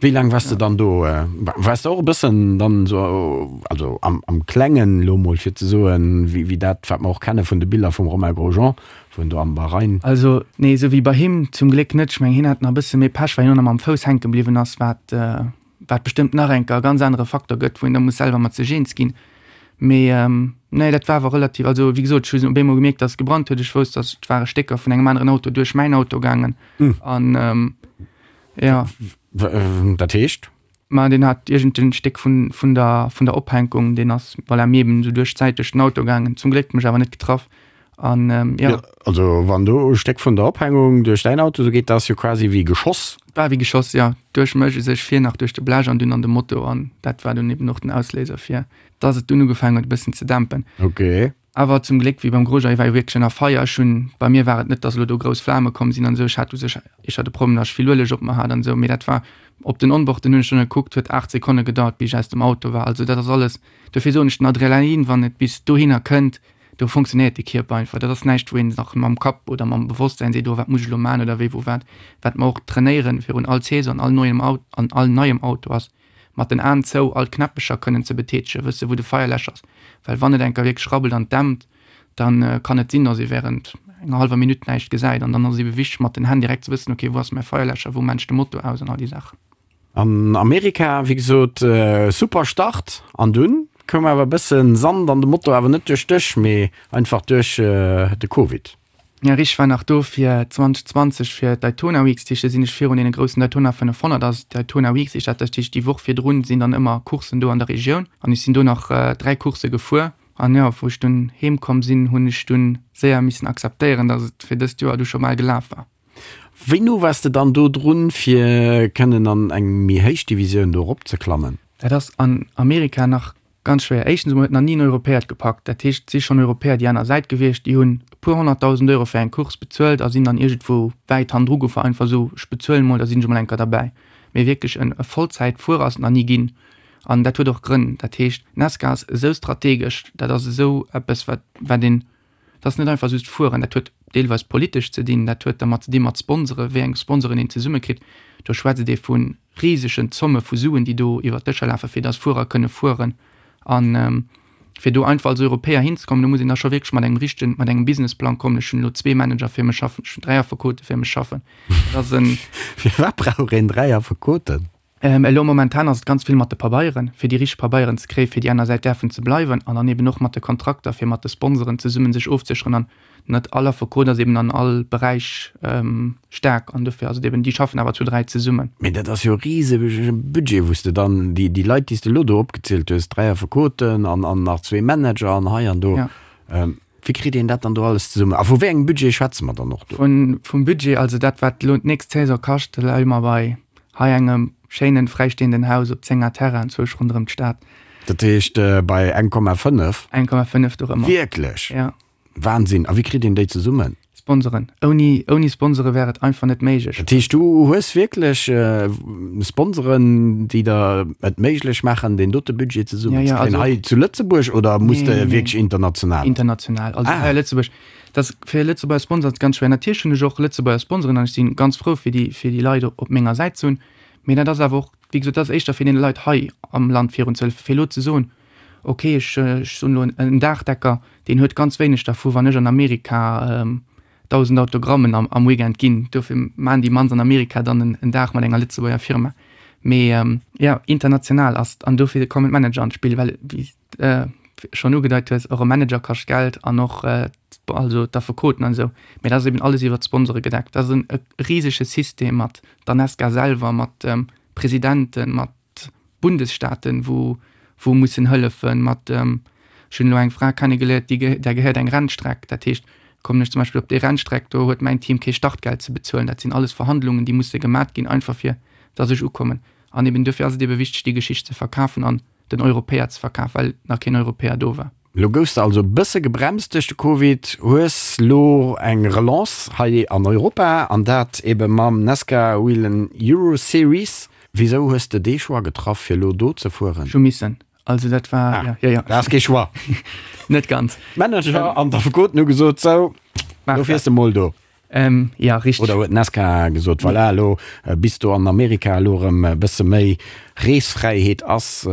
Wéi laang waars de dann do? Waars de och e bëssen dann esou, also am, am Klengen elo mol fir ze soen, wéi, wéi dat, wat mer och kenne vun de Biller vum Romain Grosjean, Wou en do am Bahrain. Also, nee, esou wéi bei him zum Gléck net. Ech mengen, hien hat nach e bësse méi Pech, well hien och nach mam Fouss hänke bliwwen ass, wat, wat bestëmmt nach enker e ganz anere Faktor gëtt, wou een da muss selwer mat sech eens ginn. Mee, nee, dat war awer relativ, also wéi gesot, ech hunn op eemol gemierkt, dass et gebrannt huet. Ech wousst, dass et ware Stécker vun engem aneren Auto duerch mäin Auto gaangen an, jo. Dat heescht? Ma deen hat iergend en Stéck vun, vun der, vun der Ophänkung, deen ass, voilà, mir eben esou duerch d'Säit duerch den Auto gaangen. Zum Gléck mech awer net getraff. An, jo. Jo, also wann do e Stéck vun der Ophängung duerch däin Auto esou geet, dat ass jo quasi wéi geschoss. War wéi geschoss, jo. Duerch mech u sech, vir nach duerch de Blech an dunn an de Moto. An dat war dunn eben och den Ausléiser fir dass et dunn ugefaangen huet e bëssen ze dämpen. Ok. Awer zum Gléck, wéi beim Grosjean, hie war jo wierklech ënner Feier. Ech hunn, bei mir war et net, dass elo do grouss Flame komm sinn an esou. Ech hat u sech éischter de Problem, dass ech vill Ueleg op mer hat an esou. Mee dat war op den Onboarden, hunn ech dunn gekuckt, huet 8 Sekonne gedauert, bis ech aus dem Auto war. Also dat ass alles, dofir soen ech, den Adrenalin, wann et bis dohinner kënnt, do funktionéiert de Kierper einfach. Dat ass näischt, wou een nach mam Kapp oder mam Bewosstsäin seet, oh wat muss ech elo maachen oder wéi wou wat. Wat mer och trainéieren virun all Saison, all neuem Auto, an all neiem Auto ass, mat den Aen zou all d'Knäppecher kënnen ze betätegen, wësse wou de Feierläscher ass, well wann et eng Kéier wierklech rabbelt an dämpt, da kann et sinn, datt ee wärend enger hallwer Minutt näischt gesäit an dann ass et ebe wichteg mat den Hänn direkt ze wëssen, ok wou ass mäi Feierläscher, wou maan ech de Motor aus an all déi Saachen. An Amerika, wéi gesot, super Start an dunn koum awer e bëssen Sand an de Motor, awer net duerch dech, mee einfach duerch de Covid. Ja richteg, war nach do fir 2020 fir d'Daytona Weeks, dat heescht do sinn ech virun deene groussen Daytona 500, ass d'Daytona Weeks heescht dat, dat heescht déi Woch virdrun sinn dann ëmmer Courssen do an der Regioun an ech sinn do nach 3 Coursse gefuer an jo wou ech dunn heem komm sinn, hunn ech dunn séier missen akzeptéieren, datt et fir dëst Joer du scho bal gelaf war. Wéi no waars de dann do drun fir kënnen an eng méi héich Divisioun do erop ze klammen? Dat ass an Amerika nach Ganz schwéier. Éischtens emol huet nach ni en Europäer et gepackt. Dat heescht, et si schonn Europäer déi aner Säit gewiescht, déi hunn e puer honnertdausend Euro fir eng Course bezuelt a sinn dann iergendwou wäit hannendru gefuer, einfach esou, ech bezuelen emol, da sinn ech emol eng Kéier derbäi. Mee wierklech en e Vollzäitfuerer ass et nach ni ginn. An dat huet och Grënn. Dat heescht, NASCAR ass esou strategesch, dat ass esou eppes, wat, wat een, dat ass net einfach just fueren, dat huet. deelweis politesch ze dinn, dat huet dermat ze dinn mat Sponsoren, wéi eng Sponsoren een zesummekritt. Do schwätzt ee vu risegen Zomme vu Suen, déi do iwwert d'Dëscher lafen, fir datt Fuerer kënne fueren. An fir do einfach als Europäer hinzekommen, do muss een da scho wierklech mat engem richtegen, mat engem Businessplang kommen. Ech hunn elo zwee Manager fir mech schaffen, ech hunn 3 Affekote fir mech schaffen. Dat ass en. Firwat brauch een 3 Affekoten? Elo momentan ass et ganz vill mat de Pabeieren, fir déi richteg Pabeieren ze kréien, fir déi aner Säit däerfen ze bleiwen an dann eben och mat de Kontrakter, fir mat de Sponsoren zesummen sech ofzesécheren. An net all Affekot ass eben an all Beräich staark an dofir ass et eben, déi schaffen awer zu 3 zesummen. Mee dat ass jo e risege Budget, wou s de dann déi Leit, déi s de elo do opgezielt hues, 3 Affekoten an nach zwee Manager an hei an do, Wéi kritt een dat dann do alles zesummen? A vu wéi engem Budget schwätze mer dann och do? Vum Budget, also dat wat elo d'nächst Saison kascht, da leie mer bei hei engem schéinen fräistehenden Haus op 10 Ar Terrain zwousch ronderëm d'Stad. Dat heescht bei 1,5? 1,5 dorëmmer. Wierklech? Ja. Wahnsinn! A wéi kritt een déi zesummen? Sponsoren. Ouni, ouni Sponsore wär et einfach net méiglech. Dat heescht, du hues wierklech Sponsoren, déi der et méiglech maachen, deen dote Budget zesummen ze kréien, hei zu Lëtzebuerg oder muss de wierklech international? International. Also hei a Lëtzebuerg, dat ass fir e Lëtzebuerger Sponsor ass et ganz schwéier. Natierlech hunn ech och Lëtzebuerger Sponsoren an ech si ganz frou, fir déi, fir déi Leit op menger Säit ze hunn. Mee dat ass awer och, wéi gesot, dat ass éischter fir deene Leit hei am Land virunzehëllefen. Fir elo ze soen, ok, ech soen elo en Daachdecker, deen huet ganz wéineg dervu wann ech an Amerika 1.000 Autogrammen am Weekend ginn. Dofir maachen déi mannst an Amerika dann en Dag mat enger Lëtzebuerger Firma. Mee jo, international ass et an dofir kommen d'Manager an d'Spill, well wéi s de schonn ugedeit hues, och e Manager kascht Geld an och also d'Affekoten an esou. Mee dat ass eben alles iwwer d'Sponsore gedeckt. Dat ass e risege System mat der Nesca selwer, mat Presidenten, mat Bundesstaaten, wou wou mussen hëllefen mat, ech hunn elo eng Fra kennegeléiert, déi där gehéiert eng Rennstreck, dat heescht, kommen ech zum Beispill op déi Rennstreck, do huet mäin Team kee Startgeld ze bezuelen. Dat sinn alles Verhandlungen, déi musse gemat ginn, einfach fir datt ech ukommen. An eben duerfir ass et ebe wichteg, déi Geschicht ze verkafen an den Europäer ze verkafen, well nach keen Europäer do war. Lo goufs de also e bësse gebremst duerch de Covid, hues lo eng Relance hei an Europa an dat ebe mam Nascar Whelen Euro Series. Wisou hues de dee Choix getraff fir lo do ze fueren? Ech hu missen, also dat war, jo, jo, jo. Dat ass kee Choix. Net ganz. D'Manager an d'Affekoten hu gesot, sou, lo fiers de mol do. Ähm, ja, richteg. Oder huet d'Nascar gesot, voilà, elo bis do an Amerika elo erëm e bësse méi Reesfräiheet ass,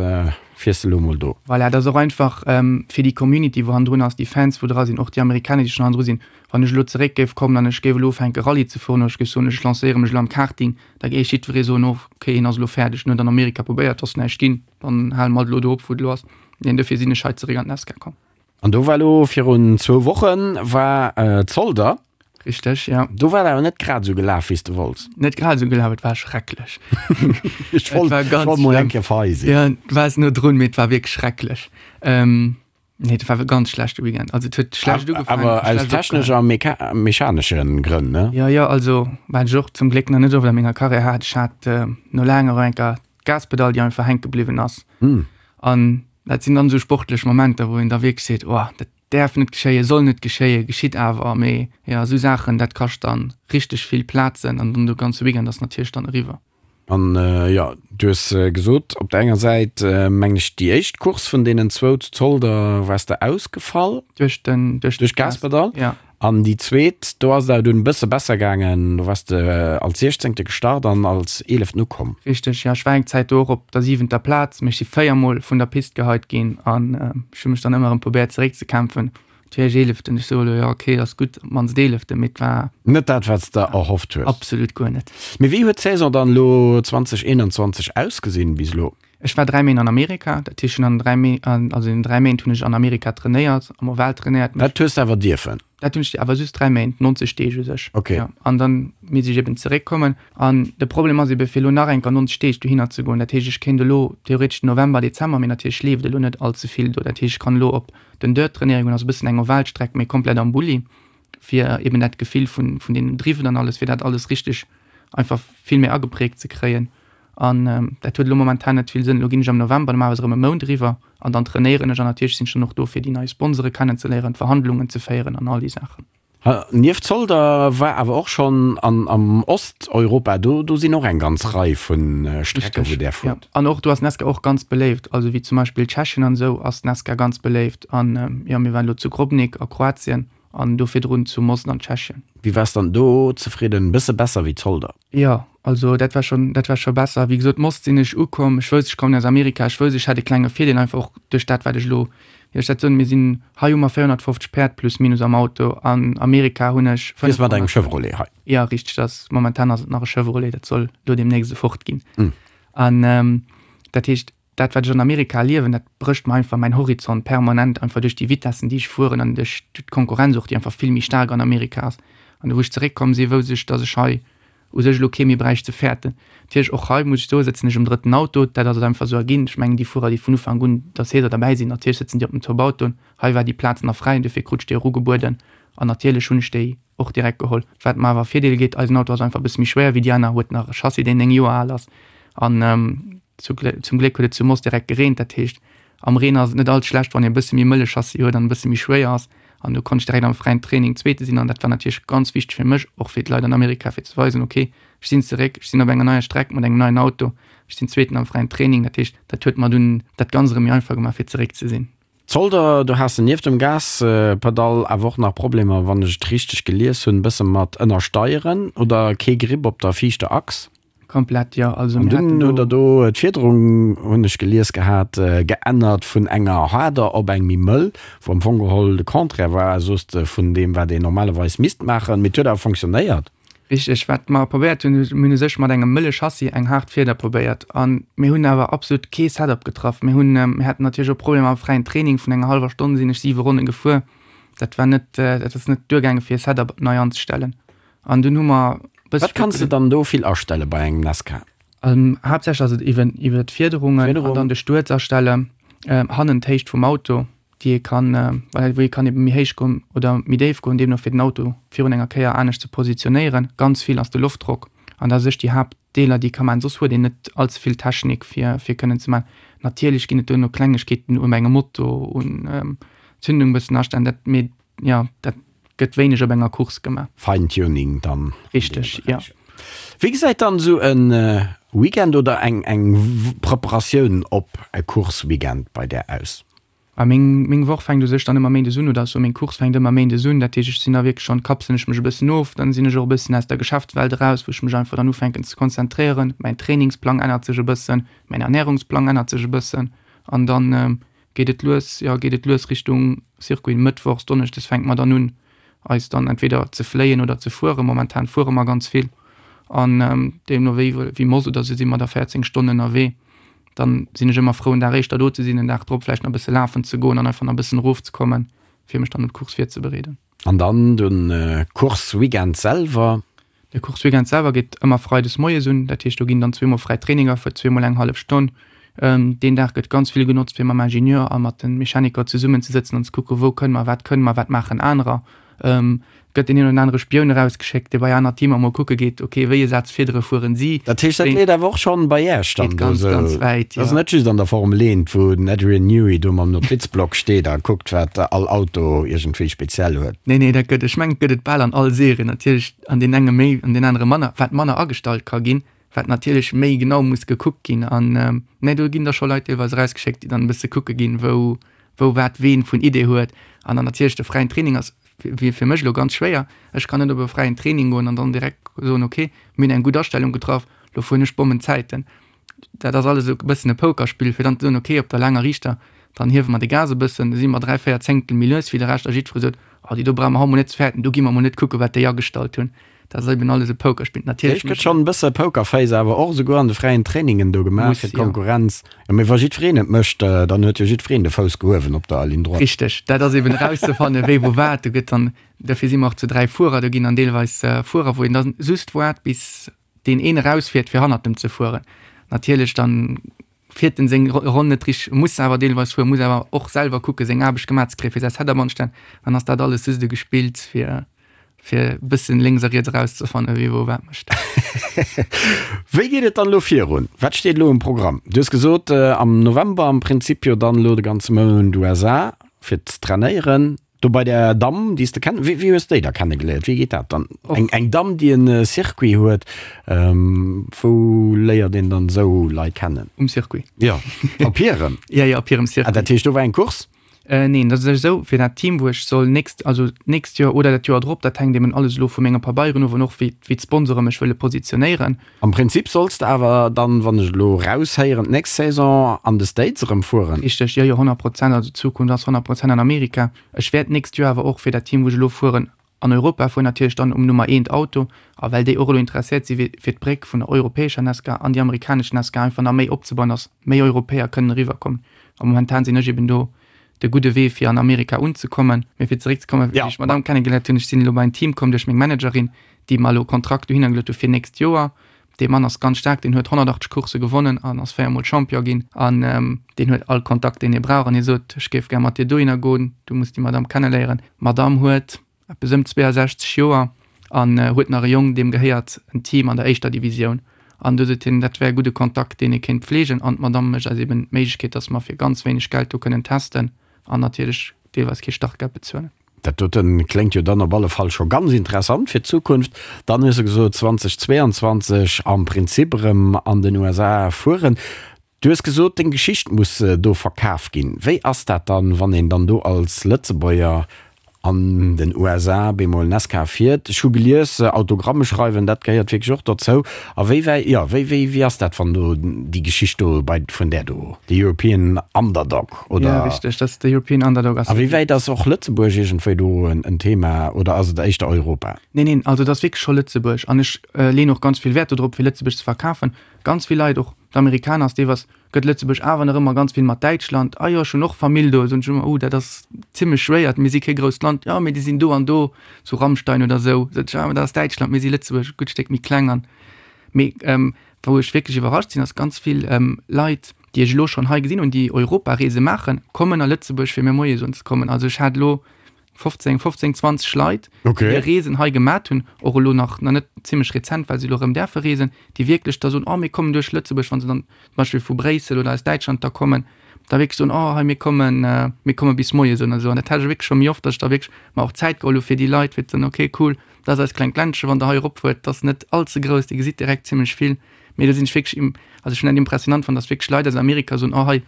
fiers de elo mol do? Voilà, dat ass och einfach fir déi Community, wou hannendrun ass, déi Fans, wou dra sinn, och déi Amerikaner, déi schonn hannendru sinn. Wann ech elo zeréck géif kommen an ech géif elo ufänke Rallye ze fueren oder ech géif soen, ech lancéiere mech elo am Karting, da géif jiddweree soen, oh, okay, hien ass elo fäerdeg, en huet an Amerika probéiert, ass näischt ginn, dann hale mer alt elo do op, wou et elo ass. Neen, dofir sinn ech hei zeréck an d'Nascar komm. An do war elo virun zwou Wochen war Zolder. Richteg, ja. Do war et awer net grad esou gelaf, wéi s de wollts. Net grad esou gelaf, et war schrecklech. Ech wollt, ech wollt mol eng Kéier fei sinn. Ja, du waars no drun, mee et war wierklech schrecklech. Ähm, nee, et war e ganz schlechte Weekend. Also et huet schlecht ugefaangen. Awer aus technesch a mechanesche Grënn, ne? Jo, jo, also wat ech och zum Gléck nach net oft a menger Karriär hat, ech hat no laanger eng Kéier d'Gaspedall, déi einfach hänke bliwwen ass. An dat sinn dann esou sportlech Momenter, wou een da wierklech seet, oh, dat däerf net geschéien, soll net geschéien, geschitt awer. Mee jo, esou Saachen, dat kascht dann richteg vill Plazen an dann de ganze Weekend ass natierlech dann eriwwer. An jo, du hues gesot, op der enger Säit, mengen ech, déi éischt Course vun deenen zwou zu Zolder waars de ausgefall. Duerch den, duerch d'Gaspedall. Ja. An déi zweet, do ass et awer dunn e bësse besser gaangen, do waars de als Siechzéngte gestart an als Eeleften ukomm. Richteg, jo. Ech war eng Zäit do och op der siwenter Plaz, mee ech si véiermol vun der Pist geheit ginn an ech hu mech dann ëmmer erëm probéiert zeréckzekämpfen. Natierlech Eeleften, ech soe elo, jo ok, ass gutt, op d'mannst Eeleften, mee et war. Net dat, wat s de erhofft hues. Absolut guer net. Mee wéi huet d'Saison dann elo 2021 ausgesinn bis elo? Ech war 3 Méint an Amerika, dat heescht ech hunn an 3 Méint, also in 3 Méint hunn ech an Amerika trainéiert, am Oval trainéiert. Dat hues de awer dierfen? Dat hunn ech, awer just 3 Méint, 90 Deeg u sech. Ok. Ja, an dann misst ech eben zeréckkommen. An de Problem ass ebe fir elo nach eng Kéier 90 Deeg dohinner ze goen. Dat heescht ech kéint elo theoretesch den November, Dezember, mee natierlech leeft elo net all ze vill do. Dat heescht ech kann elo op den Dirt trainéiere goen, also e bëssen eng Ovalstreck, mee komplett am Bulli, fir eben dat Gefill vun, vun deenen Driven an alles, fir dat alles richteg einfach vill méi ageprägt ze kréien. An dat huet elo momentan net vill Sënn. Elo ginn ech am November normalerweis erëm e Mount eriwwer an dann trainéieren ech an natierlech sinn ech dann och do fir déi nei Sponsore kennenzeléieren, d'Verhandlungen ze féieren an all déi Saachen. Nieft Zolder war awer och schonn an am Osteuropa, do do sinn och eng ganz Rei vu Strecke wou där Richteg, jo. fuert. An och do ass Nesca och ganz beléift. Also wéi zum Beispill Tschechien an esou ass Nesca ganz beléift. An jo, mir waren elo zu Grobnik a Kroatien. An do virdrun zu Most an Tschechien. Wéi waars dann do zefridden? Bësse besser wéi Zolder? Jo, also dat war schon, dat war scho besser. Wéi gesot, Most sinn ech ukomm, ech wousst, ech kommen aus Amerika, ech wousst, ech hätt e klenge Virdeel, einfach och duerch dat, wat ech elo, wéi soll ech dat soen, mir sinn, hei hu mer 450 Päerd plus minus am Auto, an Amerika hunn ech Fiers mat engem Chevrolet hei? Jo, richteg, dat ass, momentan ass et nach e Chevrolet, dat soll elo deemnächst e Ford ginn. An dat heescht, dat wat ech an Amerika erliewen, dat brécht mer einfach mäin Horizont permanent, einfach duerch déi Vitessen déi ech fueren an duerch d'Konkurrenz och, déi einfach vill méi staark an Amerika ass. An wou ech zeréckkomm sinn, wousst ech, datt ech hei u sech elo kee méi bräicht ze fäerten. Natierlech och hei muss ech soen, sëtzen ech um drëtten Auto, dat ass et einfach esou erginn. Ech mengen déi Fuerer déi vun Ufank un der Saison derbäi sinn, natierlech sëtzen déi op den Top-Autoen. Hei war déi Plaz nach fräi an dofir krut ech déi och ugebueden an natierlech hunn ech déi och direkt geholl. Wat mer awer Virdeel gétt, eisen Auto ass einfach e bësse méi schwéier wéi déi aner, huet nach e Chassis deen 9 Joer al ass an Zum Gléck huet et zu Most direkt gereent, dat heescht am Reen ass et net all schlecht wann een e bësse méi mëlle Chassis huet an e bësse méi schwéier ass. An do konnt ech direkt am fräien Training Zweete sinn an dat war natierlech ganz wichteg fir mech, och fir d'Leit an Amerika fir ze weisen, ok ech sinn zeréck, ech sinn op enger neier Streck mat engem neien Auto, ech sinn Zweeten am fräien Training. Dat heescht dat huet mer dunn dat Ganzt erëm méi einfach gemaach fir zeréck ze sinn. Zolder, do has de nieft dem Gaspedall awer och nach Problemer, wann ech et richteg gelies hunn, e bësse mat Ënnersteieren oder kee Grip op der viischter Achs. Komplett, jo. Also mir haten do. An dunn hutt der do d'Fiederung, hunn ech gelies gehat, geännert vun enger haarder op eng méi mëll, wou am Fong geholl de Contraire war, soos de, vun deem wat een normalerweis misst maachen. Mee et huet awer fonctionnéiert. Richteg. Wat mer probéiert hunn, mir hunn u sech mat engem mëlle Chassis eng haart Fieder probéiert a mir hunn awer absolut kee Setup getraff. Mir hunn, mir haten natierlech och Problemer am fräien Training, vun enger hallwer Stonn sinn ech siwe Ronne gefuer. Dat war net, dat ass net duergaange fir e Setup nei anzestellen. An dunn hu mer bësse Wat kanns de dann do vill astelle bei engem Nascar? Haaptsächlech ass et iwwen iwwer d'Fiederungen an dann de Stuerz astellen, hannen d'Héicht vum Auto, déi ee kann, well wou ee kann ebe méi héich goen oder méi déif goen, deemno fir den Auto virun enger Kéier anescht ze positionéieren. Ganz vill ass de Loftdrock an dat ass sech déi Haaptdeeler, déi ee ka maachen. Soss huet een net all ze vill Technik fir fir kënnen ze maachen. Natierlech ginn et duerno Klengegkeeten un engem Moto, un Zündung bëssen astellen, dat mee jo, dat gëtt wéineg op enger Course gemaach. Feintuning dann. Richteg, jo. Wéi gesäit dann esou e Weekend oder eng eng Preparatioun op e Course-Weekend bei där aus? Ah, meng meng Woch fänkt u sech dann ëmmer méindes un, oder sou meng Course fänkt ëmmer méindes un. Dat heescht, ech sinn da wierklech schonn, kapselen ech mech e bëssen of, dann sinn ech och e bëssen aus der Geschäftswelt eraus, wou ech mech einfach dann ufänken ze konzentréieren. Mäin Trainingsplang ännert sech e bëssen, mäin Ernärungsplang ännert sech e bëssen an dann geet et lues, jo, geet et lues Richtung Circuit. Mëttwochs, Donneschdes fänke mer dann un, eis dann entweder ze fléien oder ze fueren. Momentan fuere mer ganz vill an deemno wéi, wéi Moss oder sou si mer da 14 Stonnen ënnerwee. Dann sinn ech ëmmer frou, en Dag éischter do ze sinn, en Dag drop vläicht nach e bësse lafen ze goen an einfach nach e bëssen erofzekommen, fir mech dann op d'Course virzebereeden. An dann de Course-Weekend selwer? De Course-Weekend selwer geet ëmmer freides moies un. Dat heescht, do ginn dann zweemol fräi Traininger fir zweemol eng hallef Stonn. Deen Dag gëtt ganz vill genotzt, fir mam Ingenieur a mat de Mechaniker zesummenzesëtzen an ze kucken, wou kënne mer, wat kënne mer, wat maachen anerer. Gëtt deen een oder anere Spioun erausgeschéckt, dee bei aner Teamer mol kucke geet, ok, wéi e Saz Fiedere fueren si. Dat heescht, dat leet awer och schonn bei Iech dann do ganz, esou? Ganz wäit, jo. Dat ass net just an der Formel 1, wou den Adrian Newey do mam Notizblock steet a kuckt, wat all Auto iergendwéi speziell huet. Nee, nee, dat gëtt, ech mengen, et gëtt et bal an all Serie, natierlech an deenen enge méi, an deenen anere manner, wat manner agestallt ka ginn, wat natierlech méi genau muss gekuckt ginn. An, nee, do ginn da scho Leit deelweis erausgeschéckt, déi dann e bësse kucke ginn, wou, wou wat ween vun Idee huet. An dann natierlech de fräien Training ass wier fir mech elo ganz schwéier. Ech kann net op e fräien Training goen an dann direkt soen, ok, mir hunn eng gutt Astellung getraff, lo fueren ech Bommenzäiten. Dat ass alles esou e bëssen e Pokerspill, fir dann ze soen, ok, op der laanger Riichter, dann hiewe mer de Gas e bëssen, da si mer 3, 4 Zéngtel méi lues wéi de Rescht a jiddweree sot, oh déi do brauche mer haut mol net ze fäerten, do gi mer mol net kucken, wat déi agestallt hunn. Dat ass eben alles e Pokerspill. Natierlech gëtt schonn e bësse Pokerface awer och esouguer an de fräien Trainingen do gemaach fir d'Konkurrenz. Jo, mee wa jiddwereen et mécht, dann huet jo jiddwereen de Fouss gehuewen op der Ligne droite. Richteg, dat ass eben erauszefannen, wéi wou wat. Do gëtt dann, dofir si mer och zu 3 Fuerer, do ginn dann deelweis Fuerer, wou een dann just waart, bis deen een erausfiert, fir hannert em ze fueren. Natierlech dann fiert en seng Ronn net richteg, muss awer deelweis fueren, muss awer och selwer kucken, seng Aarbecht gemaach ze kréien, fir säi Setup anzestellen. Dann ass dat alles just e Gespills, fir fir e bëssen lénks a riets erauszefannen, wie wou wat mécht. Wéi geet et dann elo virun? Wat steet elo um Programm? Du hues gesot, am November am Prinzip jo dann elo de ganze Mount USA fir ze trainéieren. Do bei där Damm, déi s de kenn, wéi wéi hues de déi da kennegeléiert? Wéi geet dat dann? Eng eng Damm, déi en Circuit huet, wou léiert een dann esou Leit kennen? Um Circuit. Jo, op hirem? Jo, jo, op hirem Circuit. Ah, dat heescht, do war eng Course? Neen, dat ass esou, fir dat Team, wou ech soll nächst, also d'nächst Joer oder dat Joer drop, dat hänkt eben alles elo vu menge Pabeieren of an och wéi, wéi d'Sponsore mech wëlle positionéieren. Am Prinzip solls de awer dann, wann ech elo raushéieren, d'nächst Saison an de States erëm fueren? Richteg, jo, jo, 100 Prozent. Also d'Zukunft ass 100 Prozent an Amerika. Ech wäert d'nächst Joer awer och fir dat Team, wou ech elo fueren, an Europa fueren, natierlech dann um Nummer eent Auto. A well déi och elo interesséiert si fir d'Bréck vun der europäescher NASCAR an déi amerikanesch NASCAR einfach nach méi opzebauen, dass méi Europäer kënnen eriwwerkommen. A momentan sinn ech eben do de gudde Wee fir an Amerika unzekommen. Mee fir zeréckzekommen, wéi ech d'Madame kennegeléiert hunn, ech sinn elo bei en Team komm duerch meng Managerin, déi mer elo e Kontrakt dohinner geluet hu fir nächst Joer. Dee Mann ass ganz staark, deen huet 180 Coursse gewonnen an ass véiermol Champion ginn an deen huet all Kontakt, deen hie brauch. An hie sot, ech géif gär mat dir dohinner goen, du muss déi Madame kenneléieren. D'Madame huet eppes ëm 62 Joer an huet nach e Jong, deem gehéiert en Team an der éischter Divisioun. An du sot hien, dat wär e gudde Kontakt, deen ee kéint pfleegen. An d'Madame mécht eis eben d'Méiglechkeet, datt mer fir ganz wéineg Geld do kënnen testen an natierlech deelweis kee Startgeld bezuelen. Dat doten kléngt jo dann op alle Fall scho ganz interessant fir d'Zukunft. Dann hues de gesot 2022 am Prinzip erëm an den USA fueren. Du hues gesot, deng Geschicht muss do verkaf ginn. Wéi ass dat dann, wann een dann do als Lëtzebuerger an den USA bemol Nascar fiert? Ech hu gelies, Autogramme schreiwen, dat gehéiert wierklech och dozou. A wéi wäi, jo, wéi, wéi, wéi ass dat, wann do déi Geschicht do bei, vun där do, de European Underdog, oder? Ja, richteg, dat ass de European Underdog. A wéi wäit ass och Lëtzebuerg iergendwéi do en Thema, oder ass et éischter Europa? Neen, neen, also et ass wierklech scho Lëtzebuerg. An ech leeën och ganz vill Wäert dodrop, fir Lëtzebuerg ze verkafen. Ganz vill Leit, och d'Amerikaner, ass deelweis, gëtt Lëtzebuerg awer nach ëmmer ganz vill mat Däitschland, ah jo, ech hunn och Famill do, soen ech ëmmer, oh, dat ass zimmlech schwéier, mir si kee grousst Land, jo, mee déi sinn do an do, zu Rammstein oder esou, sot ech, ah, mä dat ass Däitschland, mir si Lëtzebuerg, e gutt Stéck méi kleng an. Mee wou ech wierklech iwwerrascht sinn, ass ganz vill Leit, déi ech elo schonn hei gesinn hunn, déi Europareese maachen, kommen a Lëtzebuerg fir mir Moie soen ze kommen. Also ech hat elo 15, 15, 20 Leit, okay. déi Reesen hei gemat hunn, och elo nach nach net zimmlech rezent, well se elo erëm däerfe reesen, déi wierklech da soen, oh mir kommen duerch Lëtzebuerg, wann se dann zum Beispill vu Bréissel oder aus Däitschland da kommen, da wierklech soen, oh hei mir kommen, äh, mir komme bis moies soen an esou. An dat hat ech wierklech scho méi oft, datt ech da wierklech mer och Zäit geholl hu fir déi Leit, fir ze soen, okay cool, dat ass eist klengt Ländchen, wann der hei eropfuert, dat ass net all ze grouss, dir gesitt direkt zimmlech vill. Mee do sinn ech wierklech, also ech hunn dat impressionant fonnt, datt wierklech Leit aus Amerika soen, oh hei,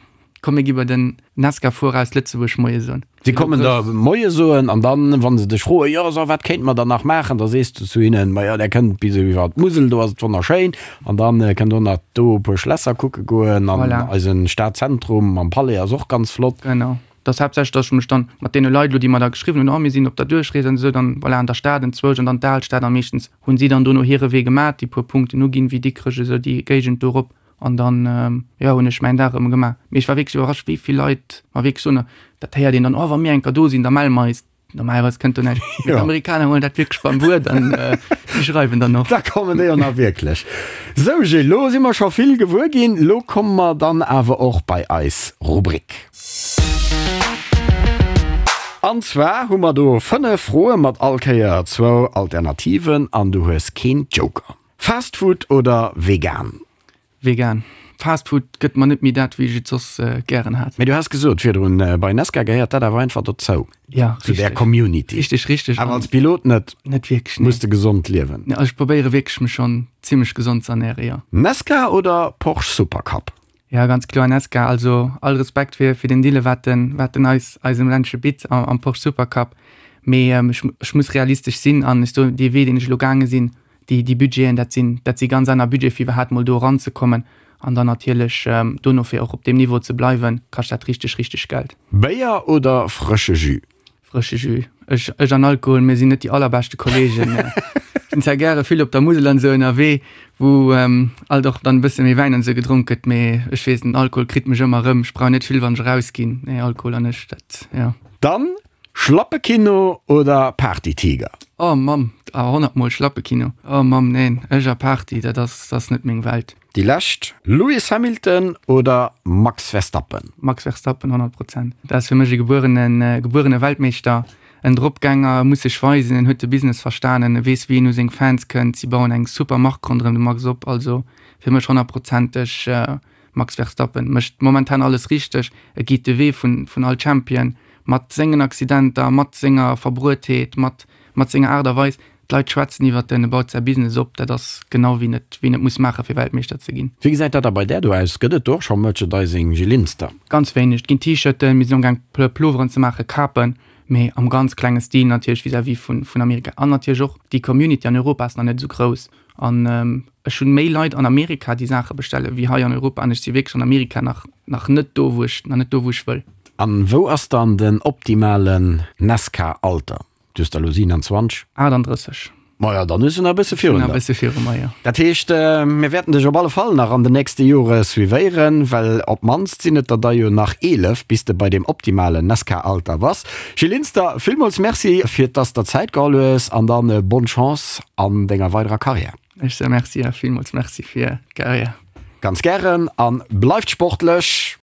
Komm mir gi bei den Nesca-Fuerer aus Lëtzebuerg Moie soen. Si kommen der Moie soen an dann, wa se dech froen, jo so wat kéinte mer dann nach maachen, da sees du zu hinnen, majo där kënnt bis iwwer d'Musel, do ass et wonnerschéin an dann kënnt der och nach do e puer Schlässer kucke goen an Voilà. eisen Stadzentrum mam Palais ass och ganz flott. Genau. Et ass haaptsächlech, dass ech mech dann mat deene Leit elo, déi mer da geschriwwen hunn, oh mir sinn op der Duerchrees an esou, dann voilà an der Stad enzwousch an dann d'Alstad a meeschtens hunn si dann dono hire Wee gemat, déi puer Punkten uginn, wéi Dikrech esou déi Géigend do erop. An dann, jo, hunn ech mäin Dag erëm gemaach. Mee ech war wierklech iwwerrascht, wéi vill Leit mer wierklech soen, dat héiert een dann, oh, wa mir eng Kéier do sinn, da melle mer eis. Normalerweis kënnt do näischt. Mee d'Amerikaner huelen dat wierklech beim Wuert an déi schreiwen dann och. Da kommen déi och nach wierklech. Sou Gilles, lo si mer scho vill gewuer ginn. Lo komme mer dann awer och bei eis Rubrik. An zwar hu mer do 5 Froe mat all Kéier zwou Alternativen an du hues keen Joker. Fast Food oder vegan? Vegan. Fast Food gëtt mer net méi dat wéi ech et soss gären hat. Mee du has gesot virdrun, bei Nesca gehéiert dat awer einfach dozou. Ja, Zu där Community. Richteg, richteg. Awer als Pilot net. Net wierklech, nee. Muss de gesond liewen. Nee, also ech probéiere wierklech mech schonn zimmlech gesond ze ernären, jo. Nesca oder Porsche Supercup? Ja, ganz kloer Nesca. Also all Respekt fir fir den Dille wat en wat en eis eisem Ländche bitt am am Porsche Supercup. Mee ech ech muss realistesch sinn an ech soen, dee Wee deen ech elo gaange sinn, déi, déi Budgeten, dat sinn, dat si ganz aner Budgete fir iwwerhaapt mol do eranzekommen an dann natierlech dono fir och op deem Niveau ze bleiwen, kascht dat richteg, richteg Geld. Béier oder frësche Jus? Frësche Jus. Ech, ech an Alkohol, mir sinn net déi allerbeschte Kollegen. Ech sinn zwar gäre vill op der Musel an esou ënnerwee, wou alt och dann e bësse méi Wäin an esou gedronk gëtt, mee ech weess, den Alkohol kritt mech ëmmer erëm. Ech brauch net vill, wann ech erausginn. Nee, Alkohol an ech, dat, jo. Dann Schlappekino oder Partytiger? Oh Mamm, awer honnertmol Schlappekino. Oh Mamm, neen, ech a Party, dat ass, dat ass net meng Welt. Déi lescht, Lewis Hamilton oder Max Verstappen? Max Verstappen, 100 Prozent. Dat ass fir mech e gebuerene, gebuerene Weltmeeschter, en Dropgänger, e muss sech weisen, en huet de Business verstanen, e weess wéi en u seng Fans kënnt, si bauen eng super Mark ronderëm de Max op, also fir mech honnertprozenteg Max Verstappen mécht momentan alles richteg, e geet de Wee vun vun all Champion, mat sengen Accidenter, mat senger Verbruetheet, mat mat senger Aart a Weis. D'Leit schwätzen iwwert en, e baut säi Business op, dat ass genau wien et, wien et muss maachen, fir Weltmeeschter ze ginn. Wéi gesäit dat da bei där do aus? Gëtt et do och scho Merchandising, Gilles Linster? Ganz wéineg. Et ginn T-Shirten, mir sinn amgaang Ploveren ze maachen, Kapen, mee am ganz klenge Stil natierlech vis-à-vis vun, vun Amerika. An natierlech och déi Community an Europa ass nach net esou grouss. An ech hunn méi Leit an Amerika, déi Saache bestellen, wéi hei an Europa. An ech si wierklech an Amerika nach, nach net do, wou ech, nach net do, wou ech wëll. An wou ass dann den optimalen Nascar-Alter? Du hues der elo 27? 38. Maja, dann hues du nach e bësse virun der. Nach e bësse viru mer, jo. Dat heescht, mir wäerten dech op alle Fall nach an den nächste Jore suivéieren, well op d'mannst sinn et der da jo nach 11, bis de bei deem optimalen Nascar-Alter bass. Gilles Linster, villmools Merci, fir dass der Zäit geholl hues an dann bonne Chance an denger weiderer Karriär. Ech soe Merci a villmools Merci fir d'Karriär. Ganz gären a bleift sportlech!